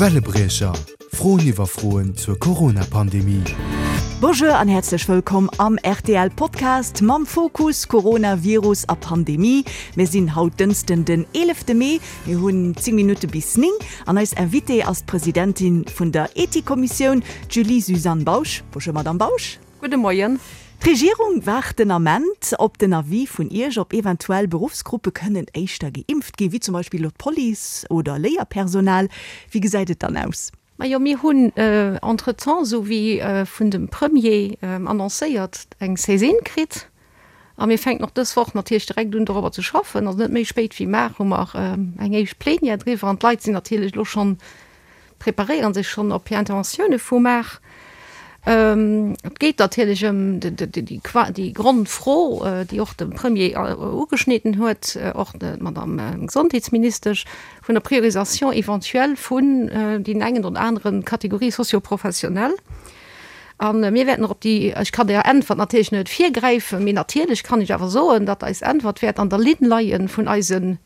Wellebriecher, Froen iwwer Froen zur Corona-Pandemie. Bonjour an häerzlech wëllkomm am rtl Podcast mam Fokus Coronavirus a Pandemie. Mir sinn haut Dënschden den 11 Mee, mir hunn 10 Minutte bis 9 an eis Invitée ass d'Presidentin vun der Ethikkommissioun, d'Julie-Suzanne Bausch. Bonjour Madame Bausch. Gudde Moien. D'Regierung waart den Ament op den Avis vun Iech, ob eventuell Beruffsgruppe kënnen éischter geimpft ginn, wéi zum Beispill elo d'Police oder Léierpersonal. Wéi gesäit et dann aus? Majo, mir hunn entretemps, esou wéi vun dem Premier annoncéiert, eng Saisine kritt a mir fänken och dës Woch natierlech direkt un dorobber ze schaffen. Also net méi spéit wéi mar hu mer eng éischt Plenière driwwer an d'Leit sinn natierlech elo schonn preparéieren sech schonn op hir Interventioune vu mar. Et geet natierlech ëm déi Grondfro, déi och de Premier ugeschnidden huet, och d'Madame Gesondheetsministesch, vun der Priorisation éventuelle vun deenen engen oder anere Catégories socio-professionnelles. A mir wäerten och op déi, ech kann där Äntwert natierlech net virgräifen, mee natierlech kann ech awer soen, datt eis Äntwert wäert an der Linn leie vun eisen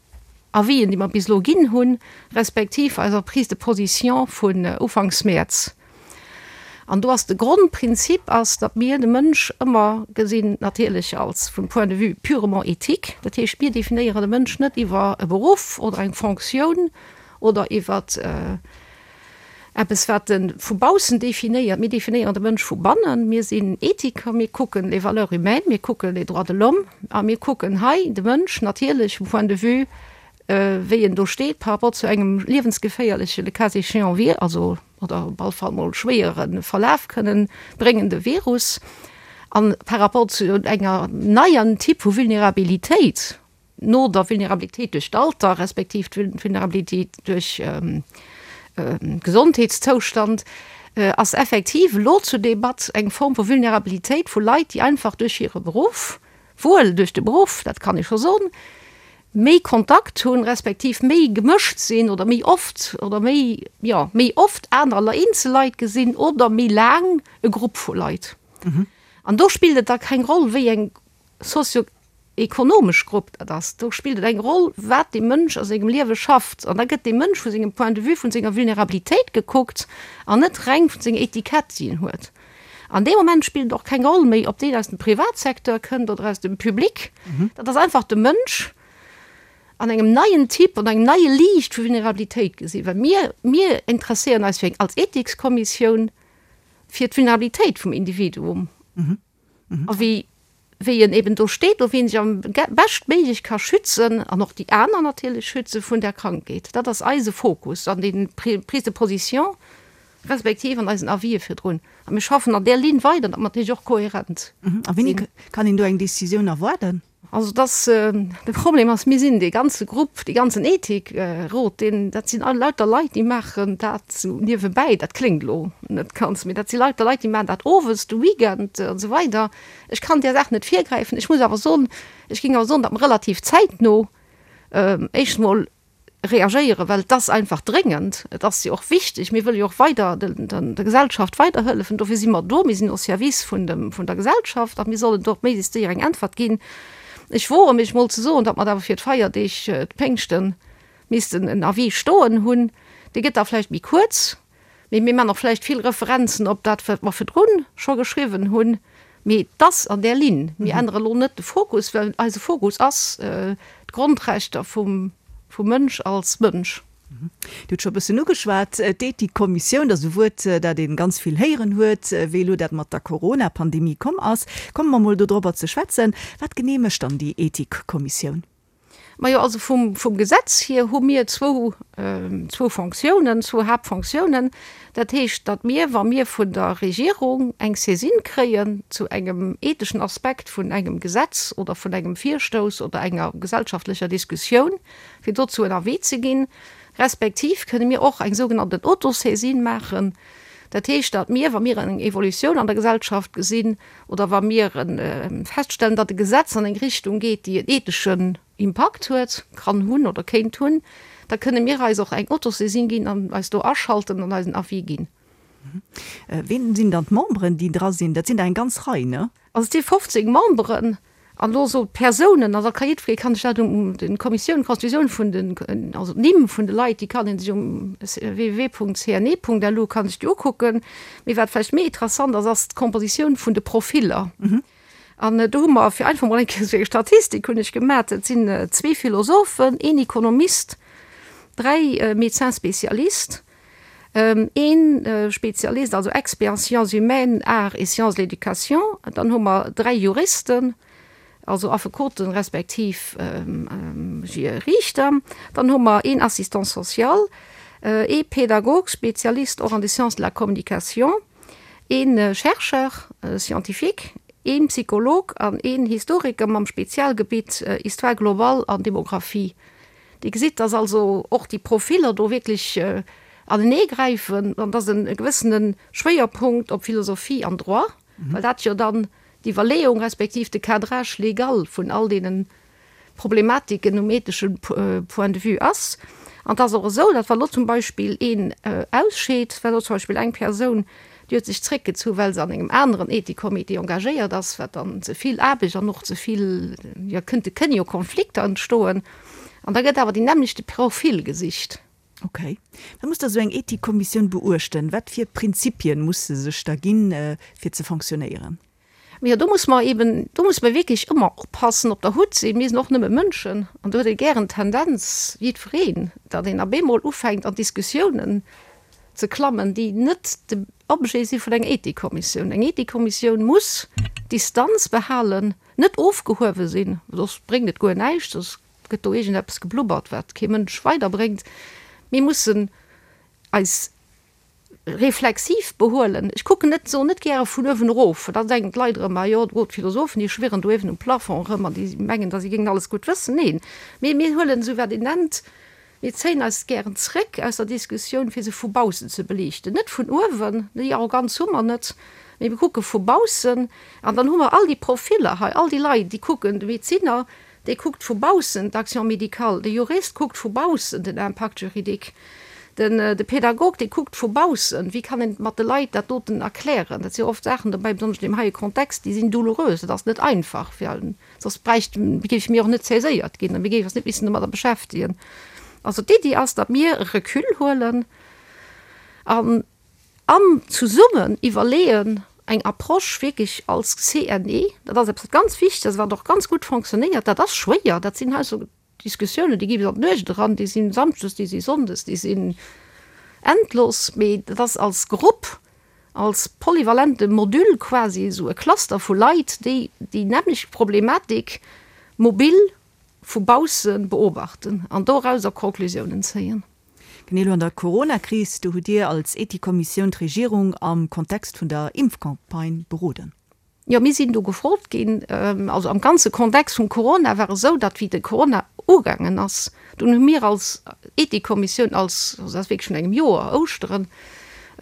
Avisen, déi mer bis elo ginn hunn, respektiv eiser Prise de position vun ufanks Mäerz. An do ass de Grondprinzip ass, datt mir de Mënsch ëmmer gesinn, natierlech als vum Point de vue purement éthique. Dat heescht, mir definéieren de Mënsch net iwwer e Beruff oder eng Fonctioun oder iwwer Eppes, wat e vu baussen definéiert. Mir definéieren de Mënsch vu bannen. Mir sinn Ethiker, mir kucken les valeurs humaines, mir kucken les droits de l'homme a mir kucken hei de Mënsch natierlech vum Point de vue, wéi en do steet par rapport zu engem liewensgeféierleche, le cas échéant, Vir-, also oder op alle Fall mol schwéiere Verlaf kënnen bréngende Virus a par rapport zu enger neier Typ vu Vulnerabilitéit. no der Vulnerabilitéit duerch d'Alter respektiv d'Vulnerabilitéit duerch Gesondheetszoustand, ass effektiv elo zur Debatt eng Form vu Vulnerabilitéit vu Leit, déi einfach duerch hire Beruff, wuel duerch de Beruff, dat kann ee scho soen, méi Kontakt hunn, respektiv méi gemëscht sinn oder méi oft oder méi, jo, méi oft aner eenzel Leit gesinn oder méi laang e Grupp vu Leit. An do spillt et da keng Roll, wéi eng sozio ekonomesch Grupp dat ass, do spillt et eng Roll, wat dee Mënsch a sengem Liewe schafft. An da gëtt dee Mënsch vu sengem Point de vue, vun senger Vulnerabilitéit gekuckt an net reng vun senger Etikett, déi en huet. An dee Moment spillt et och keng Roll méi, ob deen aus dem Privatsecteur kënnt oder aus dem Public. Dat ass einfach de Mënsch an engem neien Typ, an engem neie Liicht vu Vulnerabilitéit gesinn. Well mir, mir interesséieren eis fir eng, als Ethikskommissioun fir d'Vulnerabilitéit vum Individuum. A wéi, wéi en eben do steet, do wéi en sech am beschtméiglech ka schützen an och déi aner natierlech schütze vun där Krankheet. Dat ass eise Fokus an den Prises de position respektiv an eisen Avisë virdrun. A mir schaffen an där Linn weider, datt mer natierlech och kohärent sinn. A wéini kann een do eng Décisioun erwaarden? Also dass, de Problem ass, mir sinn dee ganze Grupp, dee ganzen Ethikrot, deen, dat sinn all lauter Leit, déi maachen dat sou niewebäi. Dat kléngt elo net ganz, mee dat si lauter Leit, déi maachen dat owes, de Weekend an esou weider. Ech kann där Saach net virgräifen. Ech muss awer soen, ech géing awer soen, datt mer relativ zäitno éischt emol reagéieren, well et ass einfach dréngend, et ass jo och wichteg, mir wëlle jo och weider der Gesellschaft weiderhëllefen, dofir si mer do, mir sinn au service vun dem, vun der Gesellschaft a mir sollen do och méiglechst séier eng Äntwert ginn. Ech woe mech mol ze soen, datt mer awer fir d'Feierdeeg, d'Péngschten, missten en Avis stoen hunn, dee gëtt da vläicht méi kuerz, Mee mir man och vläicht vill Referenzen op dat, wat mer virdrun scho geschriwwen hunn. Mee et ass an där Linn. Mir ännere elo net de Fokus, well eise Fokus ass d'Grondrechter vum Mënsch als Mënsch. Dir hutt scho e bëssen ugeschwat, d'Ethikkommissioun, dat ass e Wuert, dat ee ganz vill héieren huet, wéi elo dat mat der Corona-Pandemie komm ass. Komme mer mol dodrobber ze schwätzen. Wat genee mécht dann déi Ethikkommissioun? Majo, also vum, vum Gesetz hier hu mir zwou, zwou Fonctiounen, zwou Haaptfonctiounen. Dat heescht, datt mir, wa mir vun der Regierung eng Saisine kréien zu engem etheschen Aspekt vun engem Gesetz oder vun engem Virstouss oder enger gesellschaftlecher Diskussioun, fir dozou en Avis ze ginn, respektiv kënne mir och eng sougenannten Autosaisine maachen. Dat heescht, datt mir, wa mir eng Evolutioun an der Gesellschaft gesinn, oder wa mir feststellen, datt e Gesetz an eng Richtung geet, déi en etheschen Impakt huet, kann hunn oder kéint hunn, da kënne mir eis och eng Autosaisine ginn an eis do aschalten an eisen Avis ginn. Ween sinn dann d'Memberen, déi dra sinn? Dat sinn der eng ganz Rei, ne? Also et si 15 Memberen. An elo esou d'Persounen, also da ka jiddweree kann sech dat um den Kommissioun, d'Constitutioun vun den, also d'Nimm vun de Leit, déi kann ee sech um www.cne.lu kann sech déi ukucken. Mee wat vläicht méi interessant ass, ass d'Kompositioun vun de Profiller. An do hu mer, fir einfach mol eng Kéier esou eng Statistik hunn ech gemat, et sinn zwee Philosophen, een Ekonomist, dräi Médecins spécialistes, Een Spezialist, also Expert en sciences humaines, arts et sciences de l'éducation. Dann hu mer 3 Juristen, also Affekoten respektiv Riichter. Dann hu mer een Assistant social, ee Pädagog, Spezialist och an de Sciences de la communication, ee Chercheur scientifique, een Psycholog an een Historiker mam Spezialgebitt Histoire globale an Demographie. Dir gesitt, dass also och déi Profiller do wierklech aneneegräifen an dass e gewëssene Schwéierpunkt op Philosophie an Droit, well dat jo dann d'Iwwerleeung respektiv de Cadrage légal vun all deene Problematiken um ethesche Point de vue ass. An et ass och esou, datt wa lo zum Beispill een ausscheet, wa lo zum Beispill eng Persoun, déi huet sech zréckgezu well se an engem aneren Ethikcomité engagéiert ass, wat dann ze vill Aarbecht an och ze vill, jo kënnte kënne jo Konflikter entstoen, an da gëtt awer deen nämmlechte Profil gesicht. Ok. Wat muss da sou eng Ethikkommissioun beuechten? Wat fir Prinzipien muss se sech da ginn, fir ze fonctionnéieren? Jo, do muss mer eben, do muss mer wierklech ëmmer oppassen, op der Hutt sinn. Mir sinn och nëmme Mënschen an do huet ee gären d'Tendenz, jiddwereen, datt een op eemol ufänkt an Diskussiounen ze klammen, déi net de Objet si vun enger Ethikkommissioun. Eng Ethikkommissioun muss Distanz behalen, net ofgehuewe sinn, soss bréngt et guer näischt, soss gëtt do iergendeppes geblubbert, wat kee Mënsch weiderbréngt. Mir mussen eis reflexiv behuelen. Ech kucken net, soen net gäre vun uewen erof, well da denken d'Leit erëm, ah jo, do d'Philosophen, déi schwirren do uewen um Plafond erëm an déi mengen, datt si géingen alles gutt wëssen. Neen, mee mir huelen esou wat een nennt, mir zéien eis gären zréck aus der Diskussioun, fir se vu baussen ze beliichten. Net vun uewen, déi Arroganz hu mer net, mee mir kucke vu baussen an dann hu mer all déi Profiller hei, all déi Leit, déi kucken, de Medezinner, Dee kuckt vu baussen d'Action médicale, de Jurist kuckt vu baussen den Impact juridique, den de Pädagog, dee kuckt vu baussen, wéi kann een mat de Leit dat doten erklären. Dat si jo oft Saachen dobäi, besonnesch an deem heie Kontext, déi sinn doulourös. Dat ass net einfach, fir, soss bräicht, géife mir och net saiséiert ginn a mir géife eis net missen domadder beschäftegen. Also d'Iddi ass, datt mir e Recul huelen an, An zesummen iwwerleeën, eng Approche wierklech als CNE, dat ass eppes wat ganz wichteg ass, wat och ganz gutt fonctionnéiert, dat ass schwéier, dat sinn hei esou Diskussiounen, déi gi bis an d'Nuecht eran, déi sinn samschdes, déi si sonndes, déi sinn endlos, mee dat ass als Grupp, als polyvalente Module quasi, esou e Cluster vu Leit, déi déi nämmlecht Problematik mobil vu bausse beobachten an dorauser Conclusiounen zéien. Genee elo an der Corona-Kris, do hutt Dir als Ethikkommissioun d'Regierung am Kontext vun der Impfcampagne beroden. Jo, mir sinn do gefrot ginn. Also am ganze Kontext vum Corona war esou, datt wéi de Corona ugaangen ass, dunn hu mir als Ethikkommissioun, als, also dat ass wierklech vun engem Joer, Ouschteren,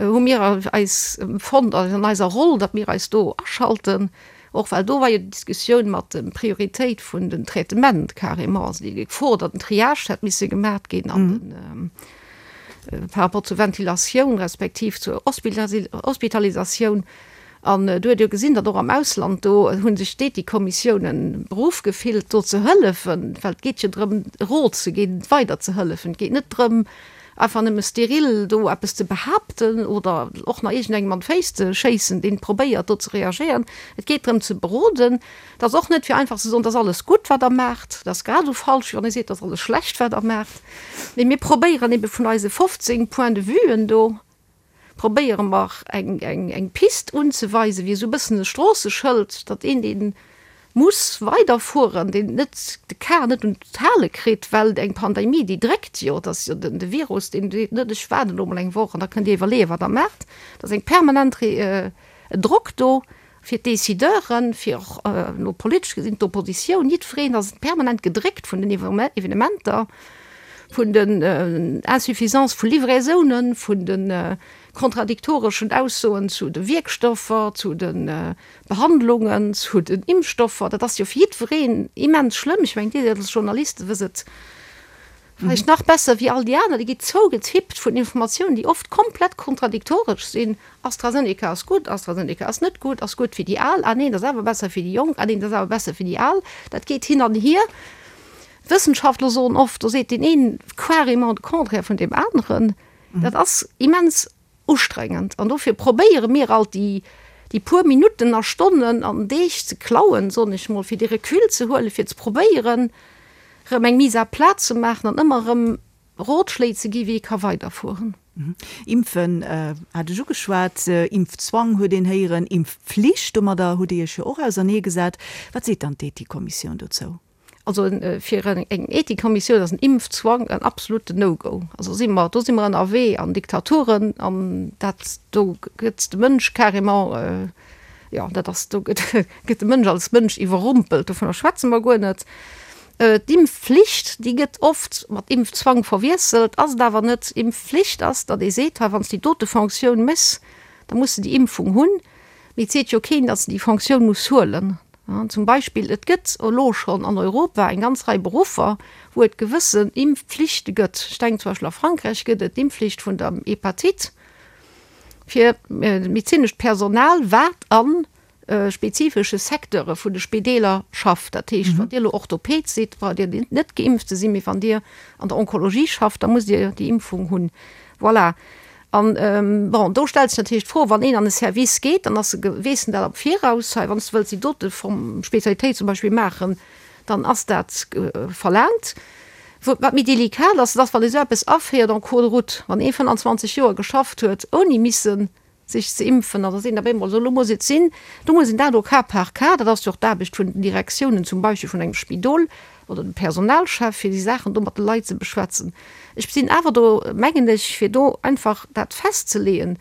hu mir eis fonnt an eiser Roll, datt mir eis do aschalten. Och well do war jo déi Diskussioun mat de Prioritéit vun den Traitement carrément, also déi Gefor, datt en Triage hätt misse gemaat ginn an den par rapport zur Ventilatioun respektiv zur Hospitalisatioun. An do huet ee jo gesinn, datt och am Ausland do hu sech d'Ethikkommissiounen beruff gefillt, do ze hëllefen, well et geet jo drëm, Rot ze ginn, weider ze hëllefen. Et geet net drëm, einfach nëmme steril do eppes ze behaapten oder och nach iergendengem an d'Féiss ze schéissen, deen probéiert do ze reagéieren. Et geet drëm ze beroden. Et ass och net fir einfach ze soen, et ass alles gutt wat Der maacht. Dat ass grad esou falsch wéi wann ee seet, et ass alles schlecht wat Der maacht. Mee mir probéieren ebe vun eise 15 Points-de-vuen do, probéiere mer eng, eng, eng Pist unzeweisen, wéi esou e bëssen e Stroosseschëld, datt een, dee muss weiderfueren, deen net de Kar net un d'Hale kritt, well eng Pandemie, déi dréckt jo, et ass jo den, de Virus, deen seet net, ech waarden elo mol eng Woch an da kënnt Dir iwwerleeën, wat Der maacht. Et ass eng permanent Drock do fir d'Decideuren, fir och elo politesch gesinn d'Oppositioun, jiddwereen ass permanent gedréckt vun den Evenementer, vun den Insuffisance vu Livraisounen, vun de kontradiktoreschen Aussoen zu de Wierkstoffer, zu de Behandlungen, zu den Impfstoffer. Dat ass jo fir jiddwereen immens schlëmm. Ech mengen, Dir als Journaliste wësst et. Vläicht nach besser wéi all déi aner, déi gi zougetippt vun Informatiounen, déi oft komplett kontradiktoresch sinn, AstraZeneca ass gutt, AstraZeneca ass net gutt, ass gutt fir déi Al, ah neen, ass awer besser fir déi Jonk, ah neen, ass awer besser fir déi Al. Dat geet hin an hier. D'Wëssenschaftler soen oft, do seet deen een carrément de Contraire vun deem aneren. Dat ass immens ustrengend an dofir probéiere mir alt déi déi puer Minutten a Stonnen an Deeg ze klauen, soen ech mol, fir dee Recul ze huelen, fir ze probéieren erëm eng Mise à plat ze maachen an ëmmer erëm Rotschléi ze gi wéi ee ka weiderfueren. Impfen hat ech ugeschwat, Impfzwang huet een héieren, Impfpflicht, domadder hutt Dir Iech jo och auserneegesat. Wat seet dann d'Ethikkommissioun dozou? Also fir eng Ethikkommissioun ass en Impfzwang en absoluten No-Go. Also si mer, do si mer ënnerwee an Diktaturen an dat do gëtt de Mënsch carrément, jo dat ass, do gëtt gëtt de Mënsch als Mënsch iwwerrumpelt, dovunner schwätze mer guer net. D'Impfflicht, déi gëtt oft mat Impfzwang verwiesselt, ass et awer net. Impfflicht ass, datt ee seet, hei wann s de déi dote Fonctioun méchs, da muss de déi Impfung hunn. Mee et seet jo keen, datt en déi Fonctioun muss huelen. Zum Beispill, et gëtt elo schonn an Europa eng ganz Rei Beruffer, wou et gewëssen Impfpflichte gëtt. Ech denken zum Beispill a Frankräich gëtt et d'Impfflicht vun der Hepatite fir medezinescht Personal, wat a spezifesche Secteure vun de Spideeler schafft. Dat heescht, wann Dir elo Orthoped sidd, braucht Dir net geimpft ze sinn, mee wann Dir an der Onkologie schafft, da musst Dir déi Impfung hunn. Voilà. An, bon, do stellt sech natierlech d'Fro, wann een an e Service geet, dann ass e, weess en dat am Viraus, hei, wann s de wëlls déi dote Form, Spezialitéit zum Beispill maachen, dann ass dat verlaangt. Wat méi delikat ass, dat ass, wann ee sou eppes aféiert en cours de route, wann ee 25 Joer geschafft huet, ouni missen sech ze impfen, an da seet een op eemol, esou, elo muss et sinn, do muss een dat au cas par cas, dat ass jo och d'Aarbecht vun den Direktiounen, zum Beispill vun engem Spidol, oder dem Personalchef, fir déi Saachen do mat de Leit ze beschwätzen. Ech sinn awer do, mengen ech, fir do einfach dat festzeleeën,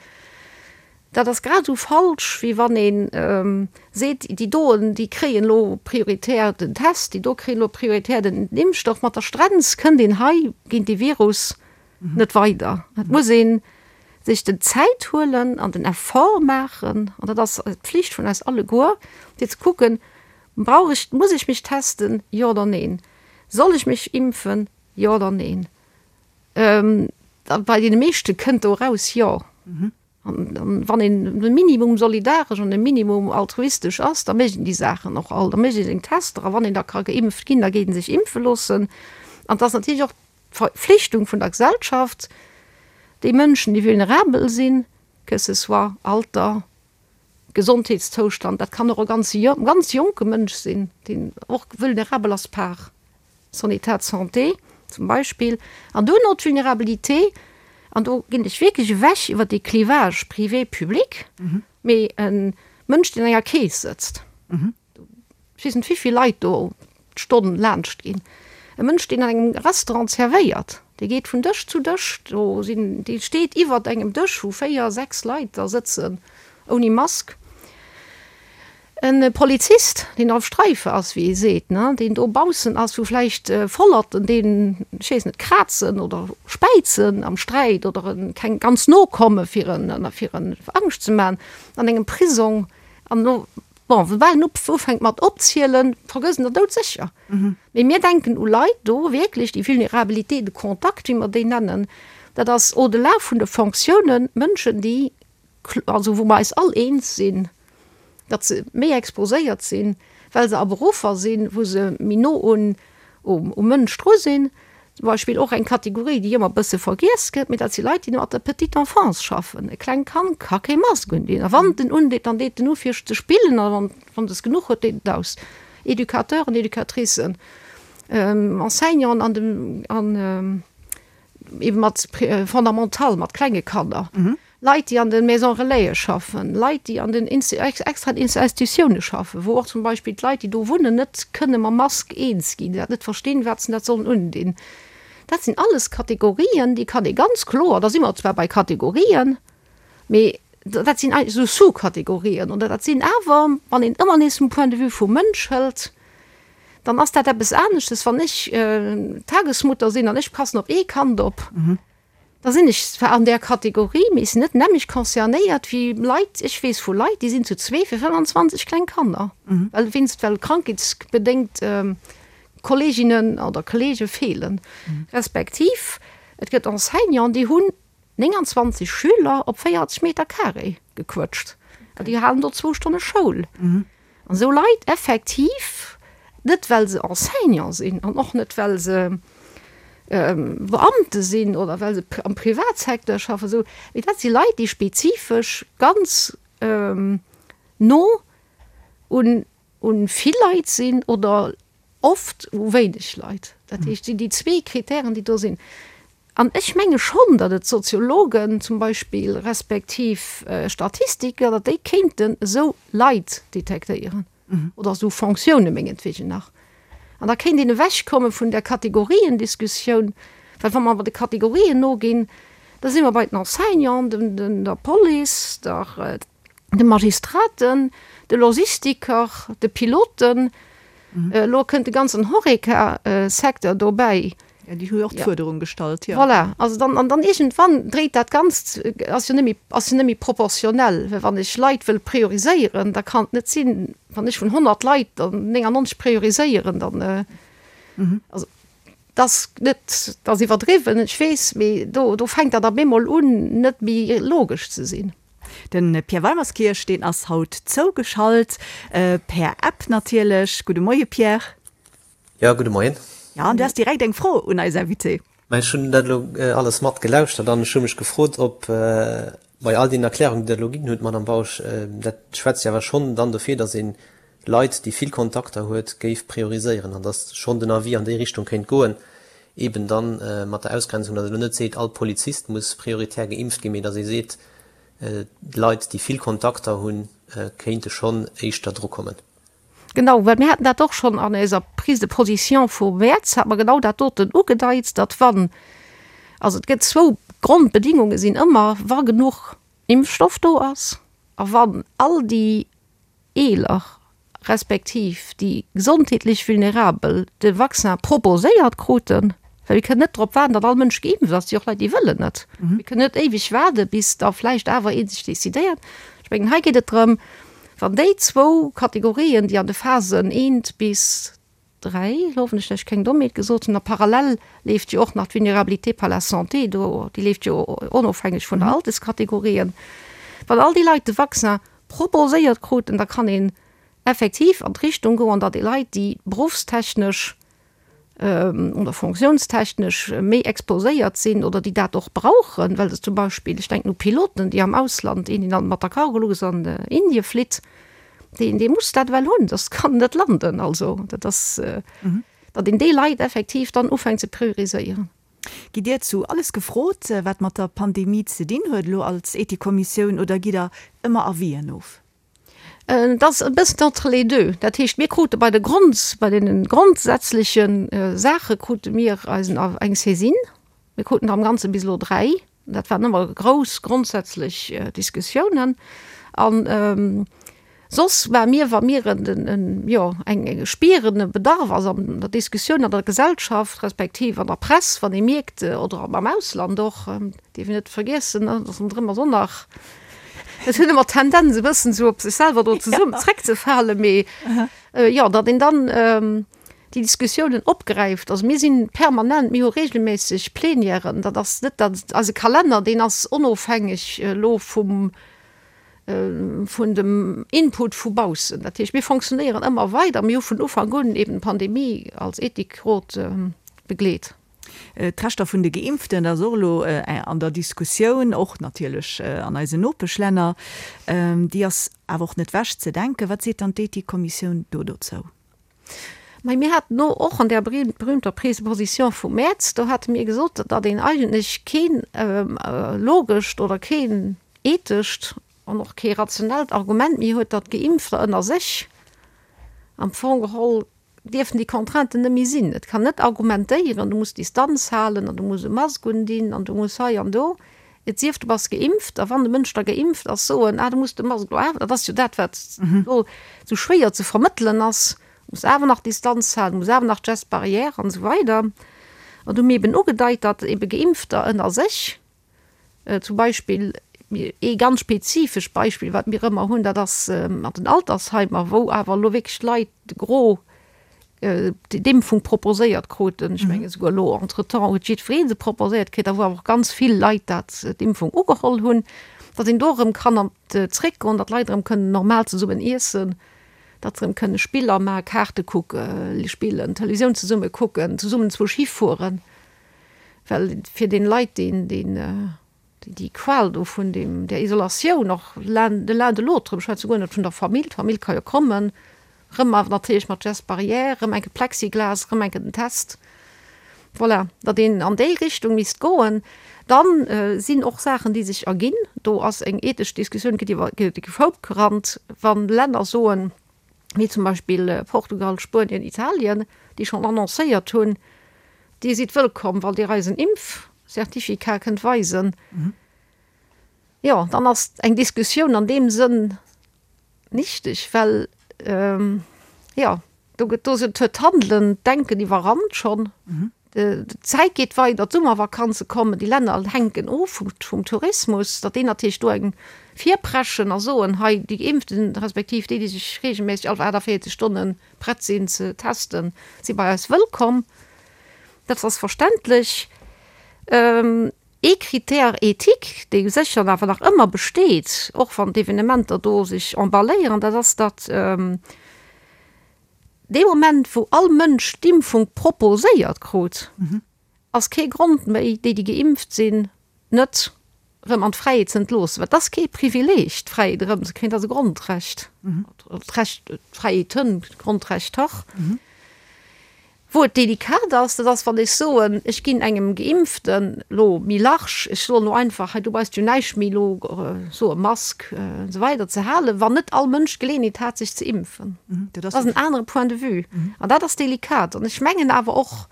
dat ass grad esou falsch, wéi wann ee seet, déi doen, déi kréien elo prioritär den Test, déi do kréien elo prioritär den Impfstoff. Mat der Strenz kënnt een hei géint dee Virus net weider. Et muss ee sech den Zäit huelen an den Effort maachen, an dat ass d'Pflicht vun eis alleguer, fir ze kucken, Brauch ech, muss ech mech testen, jo oder neen? Soll ech mech impfen, jo oder neen? Bei deene meeschte kënnt do eraus, jo. An wann een e Minimum solidaresch an e Minimum altruistesch ass, da mécht een déi Saachen och all. Da mécht ee seng Tester a wann een da ka geimpft ginn, da geet ee sech impfe loossen. An et ass natierlech och d'Verpflichtung vun der Gesellschaft, déi Mënschen, déi vulnerabel sinn, que ce soit Alter, Gesondheetszoustand, dat kann och e ganz ganz jonke Mënsch sinn, deen och vulnerabel ass par son état de santé zum Beispill. An duerno d'Vulnerabilité, an do ginn ech wierklech ewech iwwer dee Clivage privé-public, mee e Mënsch, deen an enger Keess sëtzt, Ech weess net, wéivill Leit do d'Stonn laanscht ginn. E Mënsch, deen an engem Restaurant zerwéiert, dee geet vun Dësch zu Dësch, do sinn, dee steet iwwert engem Dësch, wou 4, 6 Leit da sëtzen, ouni Mask. E Polizist, deen auf Streife ass, wéi ee seet, ne, deen do baussen ass, wou vläicht Vollerten deen, ech weess net, krazen oder späizen am Sträit oder en keng ganz no komme fir en, fir en Angscht ze man, an engem Prisong. An elo Bon, soubal en ufänkt mat opzielen, vergësst en der doudsécher. Mee mir denken u Leit do wierklech, déi Vulnérabilité de contact, wéi mer déi nennen, dat ass au-delà vun de Fonctiounen, Mënschen, déi, also wou mer eis all eens sinn, datt se méi exposéiert sinn, well se a Beruffer sinn, wou se méi no un um Mënsch dru sinn. Zum Beispill och eng Kategorie, déi ëmmer e bësse vergiess gëtt, mee dat si Leit, déi mat der Petite enfance schaffen. E klengt Kand ka kee Mask undinn. A wann et en undeet, dann deet en u fir ze spillen a wann wann et es genuch huet, deet et aus. Educateuren, Educatricen, Enseignanten an dem an ebe mat Fondamental, mat klenge Kanner. Leit, déi an de Maisons Relaisen schaffen, Leit, déi an den extraen Institutioune schaffen, wou och zum Beispill d'Leit, déi do wunnen, net kënne mam Mask eens ginn, déi dat net verstinn, wat se dat sollen undinn. Dat sinn alles Kategorien, déi kann ee ganz kloer, da si mer zwar bei Kategorien, mee dat sinn eigentlech esou Sous-Kategorien oder dat sinn awer, wann een ëmmer nees vum Point de vue vum Mënsch hëlt, dann ass dat eppes aneschtes, wann ech Tagesmutter sinn an ech passen op ee Kand op. Da sinn ech zwar an där Kategorie, mee ech sinn net nämlech concernéiert wéi Leit, ech weess vu Leit, déi sinn zu zwee fir 25 kleng Kanner, well wéinst, well krankheetsbedéngt. Kolleeginnen oder Kolleege feelen. Respektiv et gëtt Enseignanten, déi hunn 29 Schüler op 40 Meter carré gequëtscht an déi halen do zwou Stonne Schoul. An esou Leit effektiv, net well se Enseignant sinn an och net well se Beamte sinn oder well se am Privatsecteur schaffen, esou, mee dat si Leit, déi spezifesch ganz no un vill Leit sinn oder oft u wéineg Leit. Dat heescht, et sinn déi zwee Kritären, déi do sinn. An ech menge schonn, datt et Soziologen zum Beispill respektiv Statistiker, datt déi kéinten esou Leit detektéieren oder esou Fonctioune mengetwegen nach. An da kéint een ewechkomme vun där Kategoriendiskussioun, well wa mer awer de Kategorien noginn, da si mer bei den Enseignanten, der Police, der, de Magistraten, de Logistiker, de Piloten, elo kënnt de ganzen Horeca-Secteur dobäi. Ja, déi hu jo och d'Fuerderung gestallt, jo. Voilà, also dann, an dann iergendwann dréit dat Ganzt, ass jo net méi, ass jo net méi proportionell, well wann ech Leit wëll prioriséieren, da kann et net sinn, wann ech vun 100 Leit der 99 prioriséieren, dann, also dat ass net, dat ass iwwerdriwwen, ech weess, mee do, do fänkt dat op eemol un, net méi logesch ze sinn. De Pierre Weimerskirch, deen ass haut zougeschalt, per App natierlech. Gudde Moie Pierre. Jo, gudde Moien. Jo, an du has direkt eng Fro un eis Invitée. Mä ech hunn dat elo alles mat gelauschtert an ech hu mech gefrot, ob bei all deenen Erklärungen, déi Der elo ginn hutt, Madame Bausch, dat schwätzt jo awer schonn dann dofir, datt ee Leit, déi vill Kontakter huet, géif prioriséieren an datt schonn den Avis an déi Richtung kéint goen, eben dann mat der Ausgrenzung, datt ee elo net seet, all Polizist muss prioritär geimpft ginn, mee datt ee seet, Leit, déi vill Kontakter hunn, kéinte schonn éischter drukommen. Genau, well mir haten dat och schonn an eiser Prise de position vum Mäerz, hate mer genau dat doten ugedeit, datt wann, also et gëtt zwou Grondbedingunge sinn ëmmer, wa genuch Impfstoff do ass a wann all déi Eeler respektiv déi gesondheetlech Vulnerabel de Vaccin proposéiert kruten, well mir kënnen net drop waarden, datt all Mënsch geimpft ass, et si och Leit, déi wëllen net. Mir kënnen net éiweg waarde bis da vläicht awer ee sech decidéiert. Ech mengen, hei geet et drëm, wann déi zwou Kategorien, déi an de Phasen eent bis 3, elo hoffen ech, datt ech keng Dommheet gesot hunn, a parallel leeft jo och nach d'Vulnérabilité par la santé do, déi leeft jo onofhängeg vun der Alterskategorien. Wann all déi Leit de Vaccin proposéiert kruten, da kann een effektiv an d'Richtung goen, datt déi Leit, déi beruffstechnesch oder fonctiounstechnesch méi exposéiert sinn oder déi dat och brauchen, well se zum Beispill, ech denken u Piloten, déi am Ausland, een, deen mat der Cargolux an Indie flitt, Deen, dee muss dat ewell hunn, soss kann en net landen. Also dat ass, datt een déi Leit effektiv dann ufänkt ze prioriséieren. Gitt Dir zu alles gefrot, wat mat der Pandemie ze dinn huet, elo als Ethikkommissioun, oder gitt Der ëmmer Avisen of? Et ass e bëssen entre les deux. Dat heescht, mir krute bei de Grond, bei deene grondsätzleche Saache krute mir eisen, eng Saisine. Mir kruten der am Ganze bis elo 3. Dat waren ëmmer grouss grondsätzlech Diskussiounen. An soss war mir, wa mir en, jo, eng spieren, e Bedarf ass an der Diskussioun an der Gesellschaft respektiv an der Press, wann ee mierkt, oder am Ausland och, dierf een net vergiessen, datt ronderëm ass och nach, et hunn ëmmer d'Tendenz e bëssen esou op sech selwer do zesummen zréckzefalen, mee jo, datt een dann déi Diskussiounen opgräift. Also mir si permanent, mir hu regelméisseg Plenièren, dat ass net dat, eise Kalenner, deen ass onofhängeg elo vum, vun dem Input vu baussen. Dat heescht, mir fonctionnéieren ëmmer weider. Mir hu vun Ufank un eben d'Pandemie als Ethikrot begleet. D'Rechter vun de Geimpften, dat ass och elo an der Diskussioun, och natierlech an eisen Nopeschlänner. Déi ass awer och net wech ze denken. Wat seet dann d'Ethikkommissioun do dozou? Mä mir haten do och an där berühmter Prise de position vum Mäerz, do hate mir gesot, datt een eigentlech keen logescht oder keen ethescht an och kee rationellt Argument méi huet, datt Geimpfter ënner sech am Fong geholl dierfen déi Contrainten net méi sinn. Et kann net argumentéieren, du muss Distanz halen an du muss e Mask undinn an du muss hei an do. Et sief, du bass geimpft, a wann de Mënsch da geimpft ass, soen, ah, du muss de Mask elo awer, dat ass jo dat, wat elo esou schwéier ze vermëttelen ass, du muss awer nach Distanz halen, du muss awer nach d'Gestes barrières an esou weider. An do hu mir eben ugedeit, datt ebe Geimpfter ënner sech, zum Beispill ee ganz spezifescht Beispill, wat mir ëmmer hunn, dat ass an den Altersheimer, wou awer elo wierklech d'Leit de Gros. d'Impfung proposéiert kruten, ech menge souguer elo entretemps huet jiddweree se proposéiert kritt, a wou awer och ganz vill Leit dat d'Impfung ugeholl hunn, datt een do erëm kann an zréckgoen, datt d'Leit erëm kënnen normal zesummen iessen, datt se erëm kënne Spiller maachen, Kaarte kucke spillen, Televisioun zesumme kucken, zesummen zwou Schi fueren, well fir den Leit deen deen déi Qual do vun deem, där Isolatioun och l'un de l'un de l'autre, ech schwätze guer net vun der Famill, d'Famill ka jo kommen, rëm awer natierlech mat Gestes barrières, rëm enke Plexiglas, rëm enke den Test, voilà, datt een an déi Richtung misst goen. Dann sinn och Saachen, déi sech erginn, do ass eng ethesch Diskussioun, gëtt iwwer de Koup gerannt, wa Länner soen, wéi zum Beispill Portugal, Spuenien, Italien, déi schonn annoncéiert hunn, Dir sidd wëllkomm, wann Dir eis en Impfcertificat kënnt weisen. Jo, dann ass eng Diskussioun an deem Sënn nichteg, well, jo, do gëtt, do huet d'Handelen, d'Denken iwwerrannt schonn. D'Zäit geet weider, d'Summervakanze kommen, déi Länner hänken of vum Tourismus, datt déi natierlech do eng virpreschen a soen, hei déi Geimpften, respektiv déi, déi sech reegelméisseg all 48 Stonne prett sinn ze testen, si bei eis wëllkomm. Dat ass verständlech. Ee Critère éthique, dee sécher awer nach ëmmer besteet, och wann d'Evenementer do sech emballéieren, dat ass, datt, Dee Moment, wou all Mënsch d'Impfung proposéiert krut, ass kee Grond méi, déi, déi geimpft sinn, net erëm an d'Fräiheet ze entloossen. Well et ass kee Privileeg, d'Fräiheet erëmzekréien, et ass e Grondrecht, d'Recht, d'Fräiheeten, d'Grondrechter. Wou et delikat ass, dat ass, wann ech soen, ech ginn engem Geimpften elo méi large, ech soen elo einfach, hei du brauchst jo näischt méi elo soe Mask an esou weider ze halen, wann net all Mënsch d'Geleeënheet hat sech ze impfen. Dat ass en anere Point de vue an dat ass delikat. An ech mengen awer och,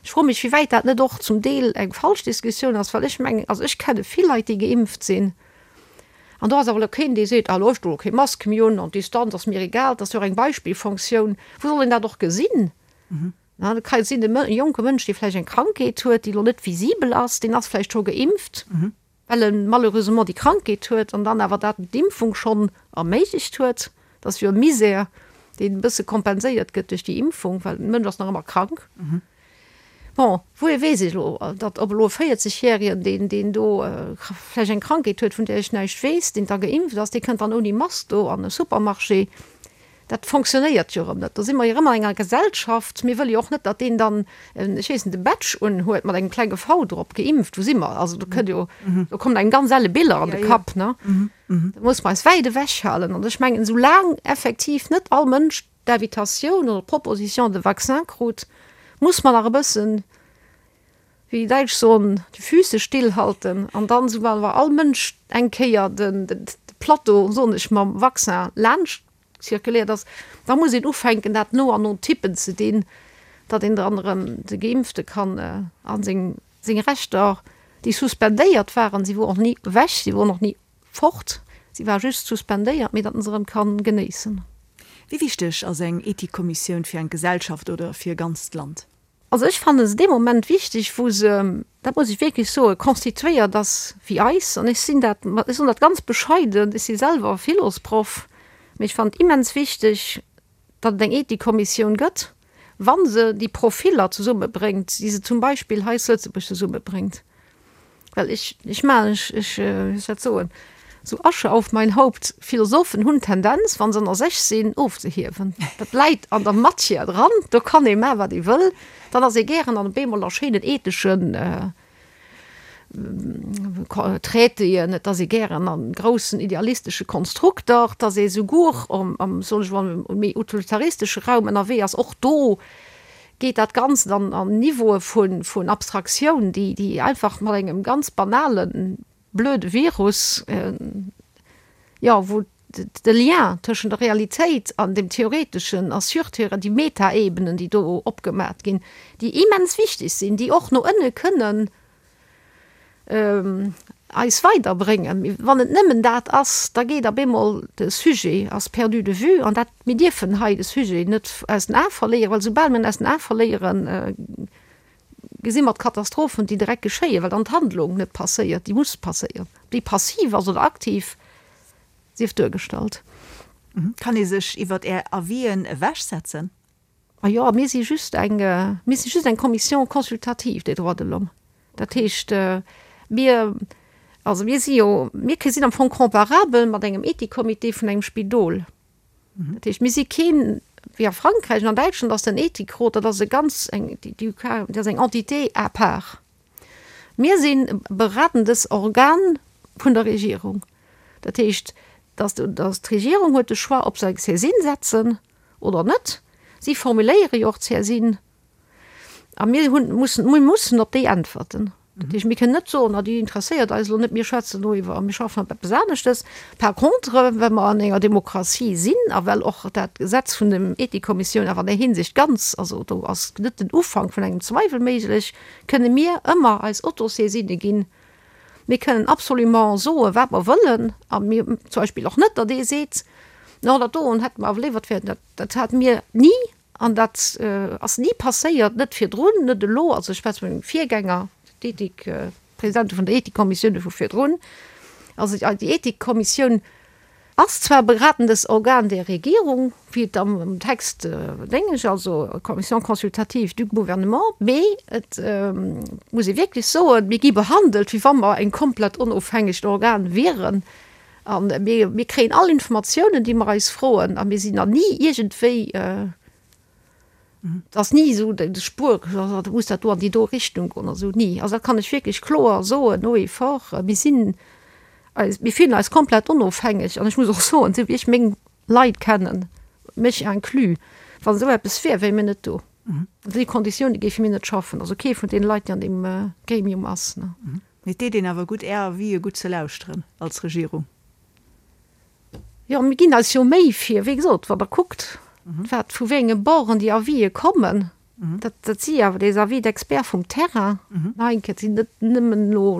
ech froe mech, wéi wäit dat net och zum Deel eng falsch Diskussioun ass, well ech mengen, also ech kenne vill Leit, déi geimpft sinn, an do ass awer elo keen, dee seet, ah elo ech doen elo kee Mask méi un an d'Distanz ass mir egal. Dat ass jo och eng Beispillfonctioun. Wou soll een dat och gesinn? Na, dat ka jo sinn, e jonke Mënsch, dee vläicht eng Krankheet huet, déi elo net visibel ass, deen ass vläicht scho geimpft, well e malheureusement déi Krankheet huet an dann awer dat d'Impfung schonn erméiglecht huet. Dat ass jo e Misär, deen e bësse kompenséiert gëtt duerch déi Impfung, well de Mënsch ass nach ëmmer krank. Bon, wouhier weess ech elo, datt ob elo e 40 Järegen, deen, deen do vläicht eng Krankheet huet, vun där ech näischt weess, deen da geimpft ass, dee kënnt dann ouni Mask do an e Supermarché. Dat fonctionnéiert jo erëm net. Do si mer jo erëm an enger Gesellschaft. Mir wëlle jo och net, datt deen dann, ech weess net, e Badge unhuet mat engem klenge V drop, geimpft. Wou si mer? Also do kënnt jo, do kommen engem ganz elle Biller an de Kapp, ne? Do muss mer eis wäit ewech halen. An ech mengen, soulaang effektiv net all Mënsch d'Invitatioun oder d'Proposition de vaccin krut, muss mer nach e bëssen, wéi déi Däitsch soen, die Füße stillhalten an dann, soubal awer all Mënsch eng Kéier de Plateau, soen ech, mam Vaccin laanscht zirkuléiert ass, da muss een ufänken, dat no an no Typen ze dinn, datt een dann erëm de Geimpfte kann a seng Rechter, déi suspendéiert waren, si woren och ni ewech, si woren och ni Fort, si war just suspendéiert, mee datt en se erëm kann genéissen. Wéi wichteg ass eng Ethikkommissioun fir eng Gesellschaft oder fir e ganzt Land? Also ech fanne se dee Moment wichteg, wou se, dat muss ech wierklech soen, constituéiert ass wéi eis. An ech sinn dat, ech soen dat ganz bescheiden, ech si selwer Philosproff, mee ech fannen et immens wichteg, datt et eng Ethikkommissioun gëtt, wa se déi Profiller zesummebréngt, déi se zum Beispill hei zu Lëtzebuerg zesummebréngt. Well ech, ech maachen, ech, ech, wéi soll ech dat soen, sou Asche auf mein Haupt, Philosophen hunn d'Tendenz, wa se ënner sech sinn, ofzehiewen. Dat läit an der Matière dran, do kann ee maachen, wat ee wëll. Dann ass ee gären an op eemol a schéinen etheschen Traitéen, et ass ee gären a groussen idealistesche Konstrukter, et ass ee souguer am, soen ech mol, méi utilitaristesche Raum ënnerwee ass. Och do geet dat Ganzt an Niveaue vun Abstraktioun, déi einfach mat engem ganz banalen, blöde Virus, jo, wou de Lien tëschent der Realitéit an dem Theoreteschen a Surthéore, déi Metaebenen, déi do opgemat ginn, déi immens wichteg sinn, déi och no ënne kënnen eis weiderbréngen. Mee wann et nëmmen dat ass, da geet op eemol de Sujet ass perdu de vue. An dat, mir dierfen hei de Sujet net aus den Ae verléieren, well soubal mir en aus den Ae verléieren, gesi mer d'Katastrophen, déi direkt geschéien, well dann d'Handlung net passéiert, déi muss passéieren, ob déi passiv ass oder aktiv. Sief duergestallt. Kann ee sech iwwert Är Avisen ewechsetzen? A jo, mir si just eng, mir si just eng Commission consultative des droits de l'homme. Dat heescht, mir, also mir si jo, mir sinn am Fong comparabel mat engem Ethikcomité vun engem Spidol. Dat heescht, mir si keen, wéi a Frankräich an an Däitschland ass den Ethikrot, dat ass e ganz eng, déi, dat ass eng Entité à part. Mir sinn e beratendes Organ vun der Regierung. Dat heescht, dass, dass d'Regierung huet de Choix, ob se eng Saisine setzen oder net. Si formuléiere jo och d'Saisine. A mir hunn, mussen, mir mussen op déi äntwerten. Dat heescht, mir kënnen net soen, ah déi interesséiert eis elo net, mir schwätzen elo iwwer, mir schaffen op eppes aneschtes. Par contre, well mer an enger Demokratie sinn a well och dat Gesetz vun dem Ethikkommissioun awer an där Hinsicht ganz, also do ass net den Ufank vun engem Zweiwel méiglech, kënne mir ëmmer eis Autosaisine ginn. Mir kënnen absolument soen, wat mer wëllen a mir zum Beispill och net, datt ee seet, no dat doen hätte mer awer léiwer, dat, dat hate mir ni. An dat ass ni passéiert, net virdrun, net elo, also ech schwätze vu mengem Virgänger, d'Ethik, d'Presidente vun der Ethikkommissioun vu virdrun. Also déi Ethikkommissioun ass zwar beratendes Organ der Regierung, wéi et am Text déngesch, also Commission consultative du gouvernement, mee et muss ee wierklech soen, mir gi behandelt, wéi wa mer eng komplett onofhängegt Organ wieren. A mir, mir kréien all Informatiounen, déi mer eis froen, a mir sinn nach ni iergendwéi, et ass ni esou de Spuer, da muss dat do an déi do Richtung goen oder esou, ni. Also dat kann ech wierklech kloer soen, haut et fort, mir sinn eis, mir fillen eis komplett onofhängeg. An ech muss och soen, esou wéi ech meng Leit kennen, mech inclus, wann esou eppes wier, wéie mir net do. An déi Konditioune géife mir net schaffen, also kee vun deene Leit, déi an deem Gremium ass. Mee et deet een awer gutt, Är Avisë gutt ze lauschteren als Regierung. Jo, mir ginn eis jo Méi fir, wéi gesot, wann Der kuckt, wat vu wéi enge Borden déi Avisë kommen, dat, dat si awer des Avis d'experts vum Terrain. Nach eng Kéier, et sinn net nëmmen elo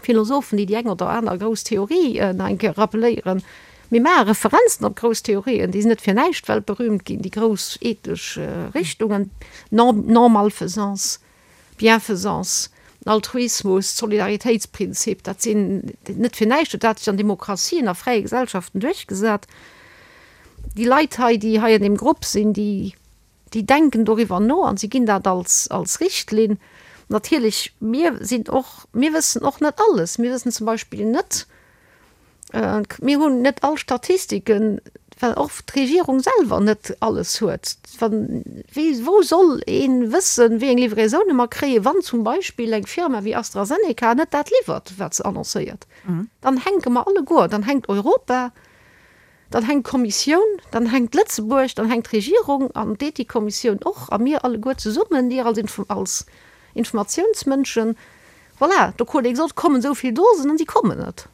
Philosophen, déi déi eng oder aner grouss Theorie nach eng Kéier rappeléieren. Mir maache Referenzen op grouss Theorien, déi sinn net fir näischt weltberühmt ginn, déi grouss ethesch Richtungen, Non-Malfaisance, Bienfaisance, den Altruismus, d'Solidaritéitsprinzip, dat sinn net fir näischt huet dat sech an Demokratien a fräie Gesellschaften duerchgesat. Déi Leit hei, déi hei an deem Grupp sinn, déi, déi denken doriwwer no an si ginn dat als, als Richtlinn. Natierlech, mir sinn och, mir wëssen och net alles. Mir wëssen zum Beispill net, Mir hunn net all Statistiken, well och d'Regierung selwer net alles huet. Wann, wéi, wou soll ee wëssen, wéi eng Livraisone mer kréien, wann zum Beispill eng Firma wéi AstraZeneca net dat liwwert, wat se annoncéiert? Dann hänke mer alleguer, dann hänkt Europa, dann hänkt d'Kommissioun, dann hänkt Lëtzebuerg, dann hänkt d'Regierung an d'Ethikkommissioun och a mir alleguer zesummen, dir als Informatiounsmënschen. Voilà, do krut ee gesot, kommen esou vill Dosen an si kommen net.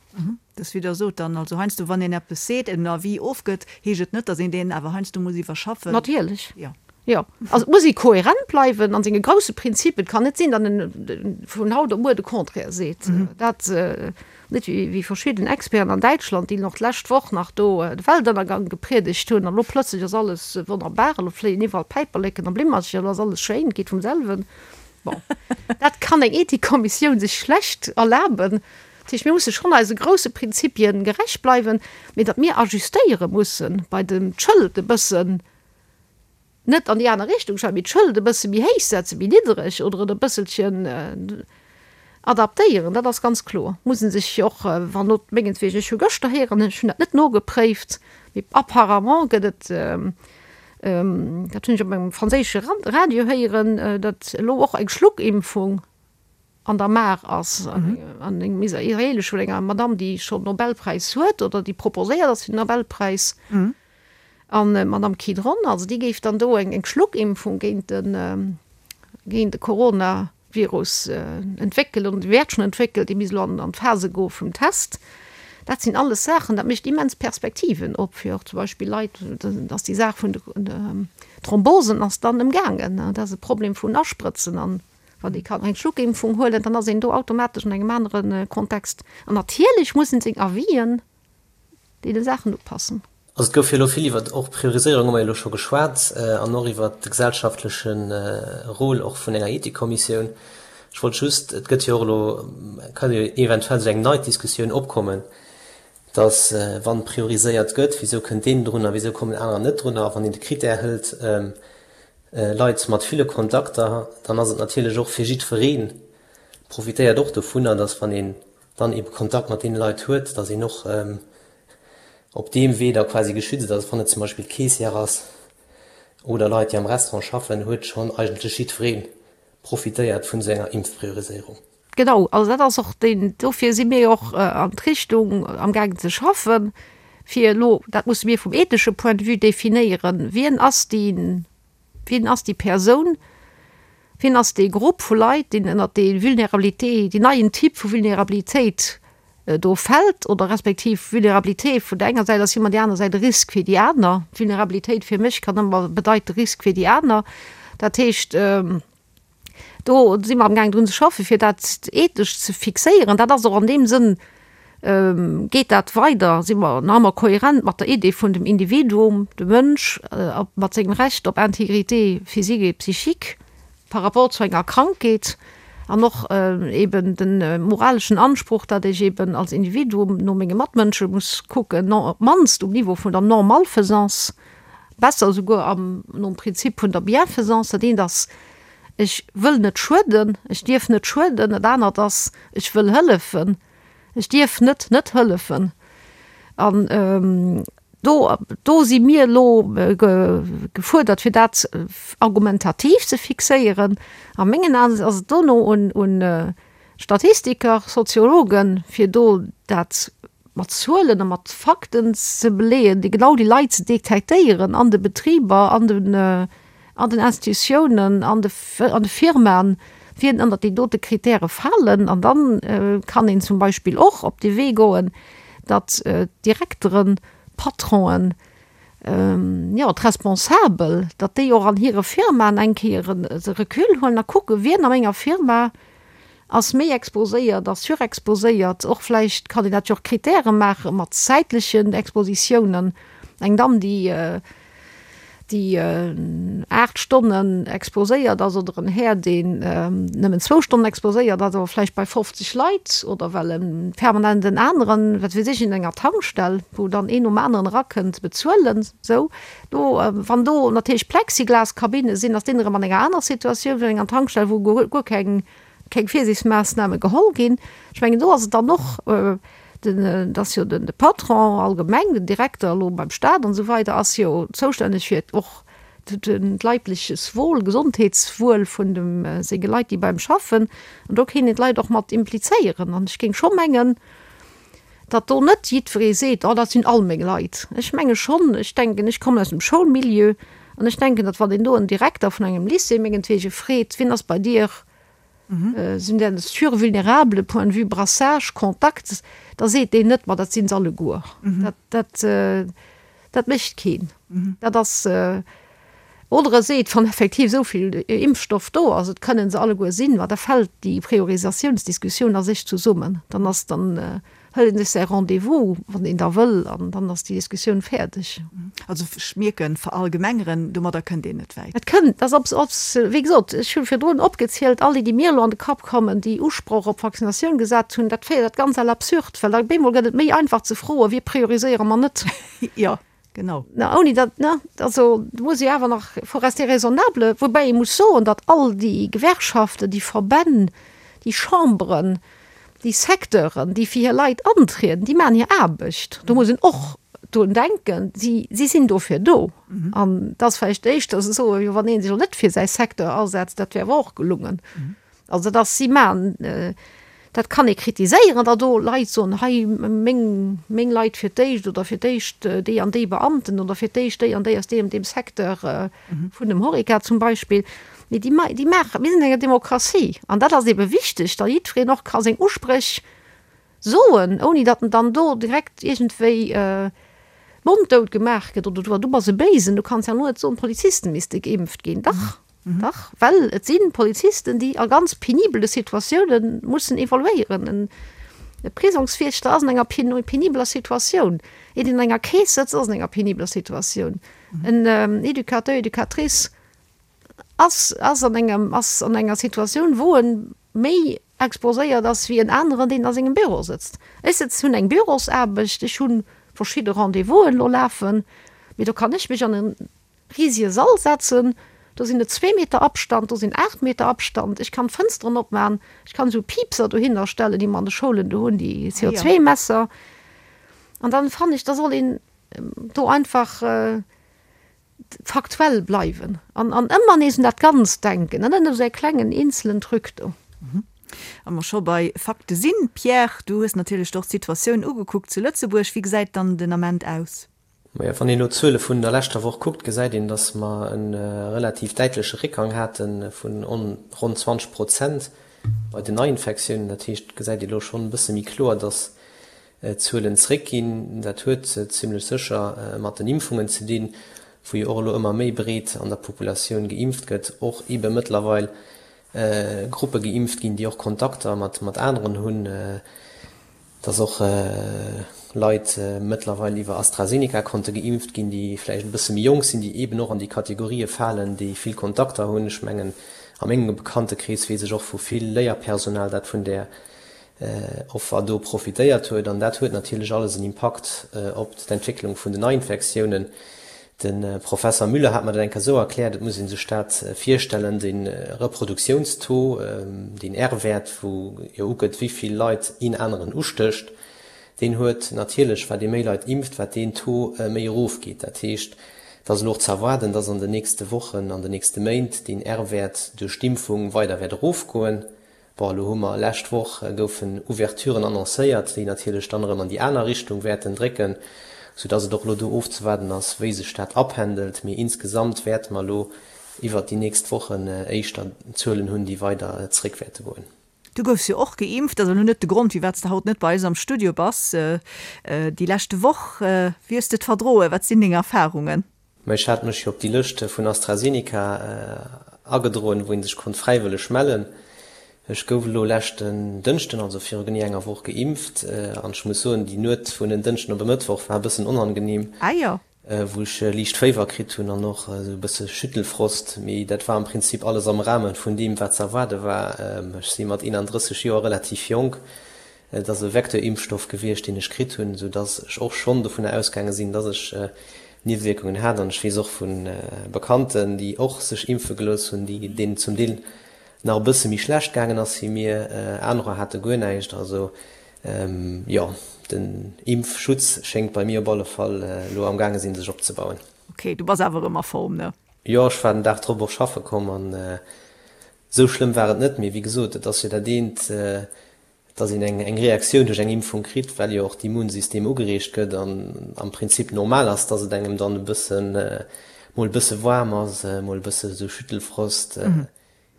Dës wéi Der sot dann, also heiansdo wann een eppes seet, en Avis ofgëtt, heescht et net, datt een deen awer heiansdo muss iwwerschaffen. Natierlech, jo. Also et muss ee kohärent bleiwen an senge grousse Prinzipien. Et kann net sinn, datt en vun haut op muer de Contraire seet. Dat net wéi verschidden Experten an Däitschland, déi nach d'lescht Woch nach do de Weltënnergang gepriedegt hunn an elo plëtzlech ass alles wonnerbar, elo fléien iwwerall Päiperleken a Blimmercher, elo ass alles schéin, geet vum selwen. Bon, dat kann eng Ethikkommissioun sech schlecht erlaben. Dat heescht, mir musse schonn eise grousse Prinzipien gerecht bleiwen, mee datt mir ajustéiere mussen bei dem d'Schëld e bëssen net an déi aner Richtung schreiwen, mee d'Schëld e bësse méi héich setzen, méi niddereg oder et e bësselchen adaptéieren, dat ass ganz kloer. Muss e sech och, wann not mengetwegen, ech hu gëschter héieren, ech hunn dat net nogepréift, mee apparemment gëtt et, dat hunn ech op engem franséische Radio héieren, datt elo och eng Schluckimpfung an der Maach ass, an engem israelesch vun enger Madamm, déi schonn Nobelpräis huet oder déi proposéiert ass fir den Nobelpräis. An d'Madamm Kidron, also déi géif dann do eng Schluckimpfung géint de géint de Coronavirus entwéckelen oder déi wäert schonn entwéckelt, déi misst elo an d'Phase goe vum Test. Dat sinn alles Saachen, dat mécht immens Perspektiven op fir och zum Beispill Leit, dass déi Saach vun de Thrombosen ass dann ëmgaangen. Dat ass e Problem vun Asprëtzen an wann ee kann eng Schluckimpfung huelen, dann ass een do automatesch an engem anere Kontext. An natierlech muss en seng Avisen deene Saachen upassen. Also et gouf jo elo vill iwwert och Prioriséierung hu mer jo elo scho geschwat an och iwwert de gesellschaftleche Rôle och vun enger Ethikkommissioun. Ech wollt just, et gëtt jo och elo, kann jo eventuell esou eng nei Diskussioun opkommen, datt wann prioriséiert gëtt, wisou kënnt deen drun a wisou kommen anerer net drun a wann een de Critère hëlt. Leit mat ville Kontakter, dann ass et natierlech och fir jiddweree profitéiert och dovunner, datt wann een dann ebe Kontakt mat deene Leit huet, datt een och op deem Wee da quasi geschützt ass. Wann et zum Beispill d'Caissière ass oder Leit, déi am Restaurant schaffen, huet schonn eigentlech jiddweree profitéiert vun esou enger Impfprioriséierung. Genau, also dat ass och deen, dofir si mir jo och an d'Richtung amgaangen ze schaffen, fir elo, dat musse mir vum ethesche Point de vue definéieren, wien ass déi, wien ass déi Persoun, wien ass dee Grupp vu Leit, deen ënnert déi Vulnerabilité, deen neien Typ vu Vulnerabilitéit do fält, oder respektiv Vulnerabilité vun der enger Säit ass ëmmer déi aner Säit e Risk fir déi aner. Vulnerabilitéit fir mech kann ëmmer bedeite Risk fir déi aner. Dat heescht, Do si mer amgaangen drun ze schaffen, fir dat ethesch ze fixéieren. Dat ass och an deem Sënn, geet dat weider, si mer nach ëmmer kohärent mat der Idee vun dem Individuum, dem Mënsch, mat sengem Recht op Intégrité physique et psychique par rapport zu enger Krankheet an och eben de moraleschen Anspruch, datt ech eben als Individuum no menge Matmënsche muss kucken, op d'mannst um Niveau vun der Non-Malfaisance. Besser esouguer am, nom Prinzip vun der Bienfaisance, dat eent ass, ech wëll net schueden, ech dierf net schueden, dat anert ass, ech wëll hëllefen, ech dierf net net hëllefen. An do, do si mir elo gefuerdert, fir dat argumentativ ze fixéieren. A mengen Aen ass et dono un, un Statistiker, Soziologen, fir do dat mat Zuelen a mat Fakten ze beleeën, déi genau déi Leit ze detektéieren an de Betriber, an den, an den Institutiounen, an de, an de Firmaen, wien ënnert déi dote Kritäre falen. An dann kann een zum Beispill och op dee Wee goen, datt d'Direkteren, d'Patronen, jo, d'Responsabel, datt déi och an hire Firmaen eng Kéier e Recul huelen a kucken, wien a menger Firma ass méi exposéiert, ass surexposéiert. Och vläicht kann een dat jo och Kritäre maache mat zäitlechen Expositiounen. Eng Damm, déi déi 8 Stonnen exposéiert ass oder en Här, deen nëmmen zwou Stonnen exposéiert ass, awer vläicht bei 50 Leit oder well e permanent en aneren, wat weess ech, in enger Tankstell, wou dann een nom aneren erakënnt, bezuelen. Sou, do, wann do natierlech Plexiglaskabinne sinn, ass deen erëm an enger aner Situatioun wéi an enger Tankstell, wou guer keng keng Virsiichtsmaassname geholl ginn. Ech mengen, do ass et dann och den, et ass jo den de Patron allgemeng, den Direkter elo beim Staat an esou weider ass jo zoustänneg fir och d'leibleches Wohl, Gesondheetswuel vun dem senge Leit, déi bei em schaffen. An do kéint een d'Leit och mat implizéieren. An ech géing scho mengen, datt do net jiddweree seet, oh dat sinn all meng Leit. Ech menge schonn, ech denken, ech kommen aus dem Schoulmilieu an ech denken, datt wann een do en Direkter vun engem Lycée mengetwege freet, wien ass bei dir, sinn der survulnérable point de vue brassage, contact, da seet deen net, ma dat sinn se alleguer. Dat, dat, dat mécht keen. Dat ass, oder e seet, wann effektiv esou vill Impfstoff do ass, et kënnen se alleguer sinn, ma da fält déi Priorisatiounsdiskussioun a sech zesummen. Dann ass, dann hëlt een sech säi Rendez-vous, wann een da wëll, an dann ass déi Diskussioun fäerdeg. Also ech mierken, verallgemengeren, domadder kënnt een net wäit. Et kënnt, ass ob, ob, wéi gesot, ech hu virdrun opgezielt, all déi, déi mir elo an de Kapp kommen, déi Usproch op Vaccinatioun gesat hunn, dat féiert dat Ganzt à l'absurde, well da op eemol gëtt et méi einfach ze froen, wie prioriséiere mer net. Jo. Genau. Na, ouni datt, ne, also do muss ee awer nach, faut rester raisonnable, woubäi ee muss soen, datt all déi Gewerkschaften, déi Verbänn, déi Chamberen, déi Secteuren, déi fir hir Leit antrieden, déi maachen hir Aarbecht. Do muss een och drun denken, si, si sinn dofir do. An et ass vläicht éischter ze soen, jo wann ee sech elo net fir säi Secteur asetzt, dat wär awer och gelungen. Also dat ass, si maachen, dat kann ee kritiséieren, datt do Leit soen, hei meng, meng Leit fir d'éischt oder fir d'éischt déi an déi Beamten oder fir d'éischt déi an déi aus deem an deem Secteur vun dem Horeca zum Beispill. Mee déi, déi maachen, mir sinn an enger Demokratie an dat ass eebe wichteg, datt jiddwereen och ka seng Uspréch soen, ouni datt en dann do direkt iergendwéi monddout gemaach gëtt oder du, du bass e Béisen, du kanns ja elo net soen, d'Polizisten misste geimpft ginn. Dach! Dach, well et si Polizisten, déi a ganz penibele Situatioune mussen evoluéieren. E Prisongswiechter ass an enger penibeler Situatioun. Een, deen an enger Keess sëtzt, ass an enger penibeler Situatioun. En Educateur, Educatrice ass, ass an engem, ass an enger Situatioun, wou e méi exposéiert ass wéi en aneren, deen a sengem Büro sëtzt. Ech sëtz, hunn eng Bürosaarbecht, ech hu verschidde Rendez-vousen elo lafen, mee do kann ech mech an e risege Sall setzen. Do sinn et zwee Meter Abstand, do sinn 8 Meter Abstand. Ech kann d'Fënsteren opmachen, ech kann esou Piipser dohinner stellen, déi mer an de Schoulen do hunn, déi CO2-Messer. An dann fannen ech, da soll een do einfach faktuell bleiwen an an ëmmer nees un dat Ganzt denken an net un esou e klengen eenzelen Truc do. Wa mer scho bei Fakte sinn, Pierre, du hues natierlech och d'Situatioun ugekuckt zu Lëtzebuerg. Wéi gesäit dann den Ament aus? Majo, wann een elo d'Zuele vun der leschter Woch kuckt, gesäit een, datt mer e relativ däitleche Réckgang hate vun ronn 20 Prozent bei den Neiinfektiounen. Dat heescht, et gesäit ee elo schonn e bësse méi kloer, datt d'Zuelen zréckginn. Dat huet zimmlech sécher mat den Impfungen ze dinn, wou jo och elo ëmmer méi breet an der Populatioun geimpft gëtt, och eebe mëttlerweil Gruppe geimpft ginn, déi och Kontakter mat aneren hunn. Dass och Leit mëttlerweil iwwer AstraZeneca konnte geimpft ginn, déi vläicht e bësse méi jonk sinn, déi eeben och an déi Kategorië falen, déi vill Kontakter hunn. Ech mengen, a mengem Bekanntekrees weess ech och vu vill Léierpersonal, dat vun där Offer do profitéiert huet. An dat huet natierlech alles en Impakt op d'Entwécklung vun den Neiinfektiounen. De Professer Müller hat mer dat eng Kéier esou erkläert, et muss ee sech dat virstellen, de Reproduktiounstaux, deen R-Wäert, wou jo ugëtt, wéi vill Leit een aneren ustécht, deen huet natierlech, wat ee méi Leit impft, wat deen Taux méi erofgeet. Dat heescht, et ass elo och ze erwaarden, dass an den nächste Wochen, an den nächste Méint deen R-Wäert duerch d'Impfung weider wäert erofgoen. Bon, elo hu mer, lescht Woch goufen Ouverturen annoncéiert, déi natierlech dann erëm an déi aner Richtung wäerten drécken, soudass et och elo do ofzewaarden ass, wéi sech dat apendelt. Mee insgesamt wäerte mer elo iwwert déi nächst Wochen éischter Zuelen hunn, déi weider zréck wäerte goen. Du goufs jo och geimpft, dat ass elo net de Grond, firwat s de haut net bei eis am Studio bass. Déi leschte Woch, wéi hues de et verdroen? Wat sinn deng Erfarungen? Mä ech hat mech jo op déi Lëscht vun AstraZeneca agedroen, wou ee sech konnt fräiwëlleg mellen. Ech gouf elo leschten Dënschden, also viru genee enger Woch, geimpft. An ech muss soen, déi Nuet vun en Dënschden op e Mëttwoch war e bëssen onangenehm, wou ech liicht Féiwer kritt hunn an och esou e bësse Schüttelfrost. Mee dat war am Prinzip alles am Rahme vun deem, wat ze erwaarde war. Ech si mat 31 Joer relativ jonk. Et ass e Vecteur-Impfstoff gewiescht, deen ech kritt hunn, esou dass ech och schonn dovunner ausgaange sinn, dass ech Niewewierkungen hat. An ech weess och vu Bekannten, déi och sech impfe gelooss hunn, déi deenen zum Deel nach e bësse méi schlecht gaangen ass wéi mir. Anerer hate guer näischt. Also jo, den Impfschutz schéngt bei mir op alle Fall elo am gaange sinn, sech opzebauen. Ok, du bass awer erëm a Form, ne? Jo, ech war den Dag drop och schaffe komm an esou schlëmm war et net. Mee wéi gesot, et ass jo dat eent, dass een eng Reaktioun duerch eng Impfung kritt, well jo och d'Immunsystem ugereegt gëtt an am Prinzip normal ass, dass et engem dann e bëssen, mol e bësse waarm ass, mol e bësse sou Schüttelfrost,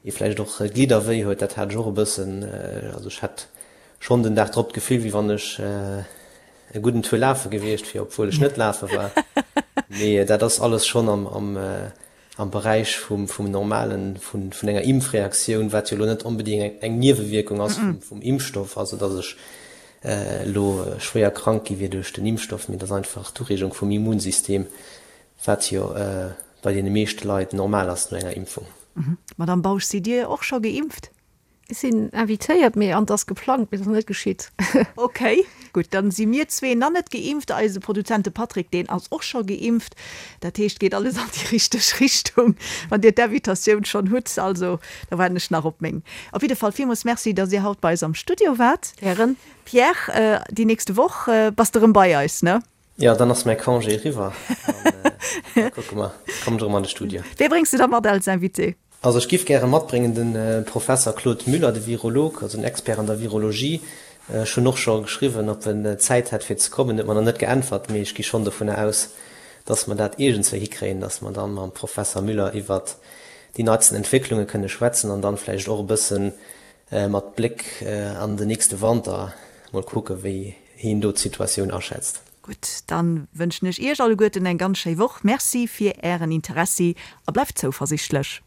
ee vläicht och Glidderwéi huet. Dat hat ech och e bëssen. Also ech hat schonn den Dag drop d'Gefill, wéi wann ech e gudden Tour lafe gewiescht wier, obwuel ech net lafe war. Mee dat ass alles schonn am am Beräich vum vum normalen, vun vun enger Impfreaktioun, wat jo elo net onbedéngt eng Niewewierkung ass vum vum Impfstoff, also datt ech elo schwéier krank gi wier duerch den Impfstoff, mee et ass einfach d'Ureegung vum Immunsystem, wat jo bei deene meeschte Leit normal ass no enger Impfung. Madamm Bausch, sidd Dir och scho geimpft? Ech sinn invitéiert, mee an 't ass geplangt, mee et ass nach net geschitt. Ok, gutt, dann si mir zwee nach net geimpft. Eise Produzent, de Patrick, deen ass och scho geimpft. Dat heescht, geet alles an déi richteg Richtung, wann Dir d'Invitatioun schonn hutt. Also, da waarden ech nach op meng. Op jidde Fall villmools Merci, dass Dir haut bei eis am Studio waart. Gären. Pierre, déi nächste Woch bass de rëm bei eis, ne? Jo, dann ass mäi Congé eriwwer an da kucke mer, kommen ech erëm an de Studio. Wee bréngs de da mat als Invité? Also ech giff gäre matbréngen de Professer Claude Müller, de Virolog, also en Expert an der Virologie. Ech hunn och scho geschriwwen, ob en Zäit hätt fir ze kommen, huet mer nach net geäntwert, mee ech gi schonn dovunner aus, dass mer dat iergendswéi hikréien, dass mer dann mam Professer Müller iwwert déi neitsten Entwécklunge kënne schwätzen an dann vläicht och e bësse mat Bléck an den nächste Wanter mol kucke wéi hien do d'Situatioun aschätzt. Gutt, dann wënschen ech Iech alleguerten eng ganz schéi Woch. Merci fir Ären Interessi a bleift zouversichtlech.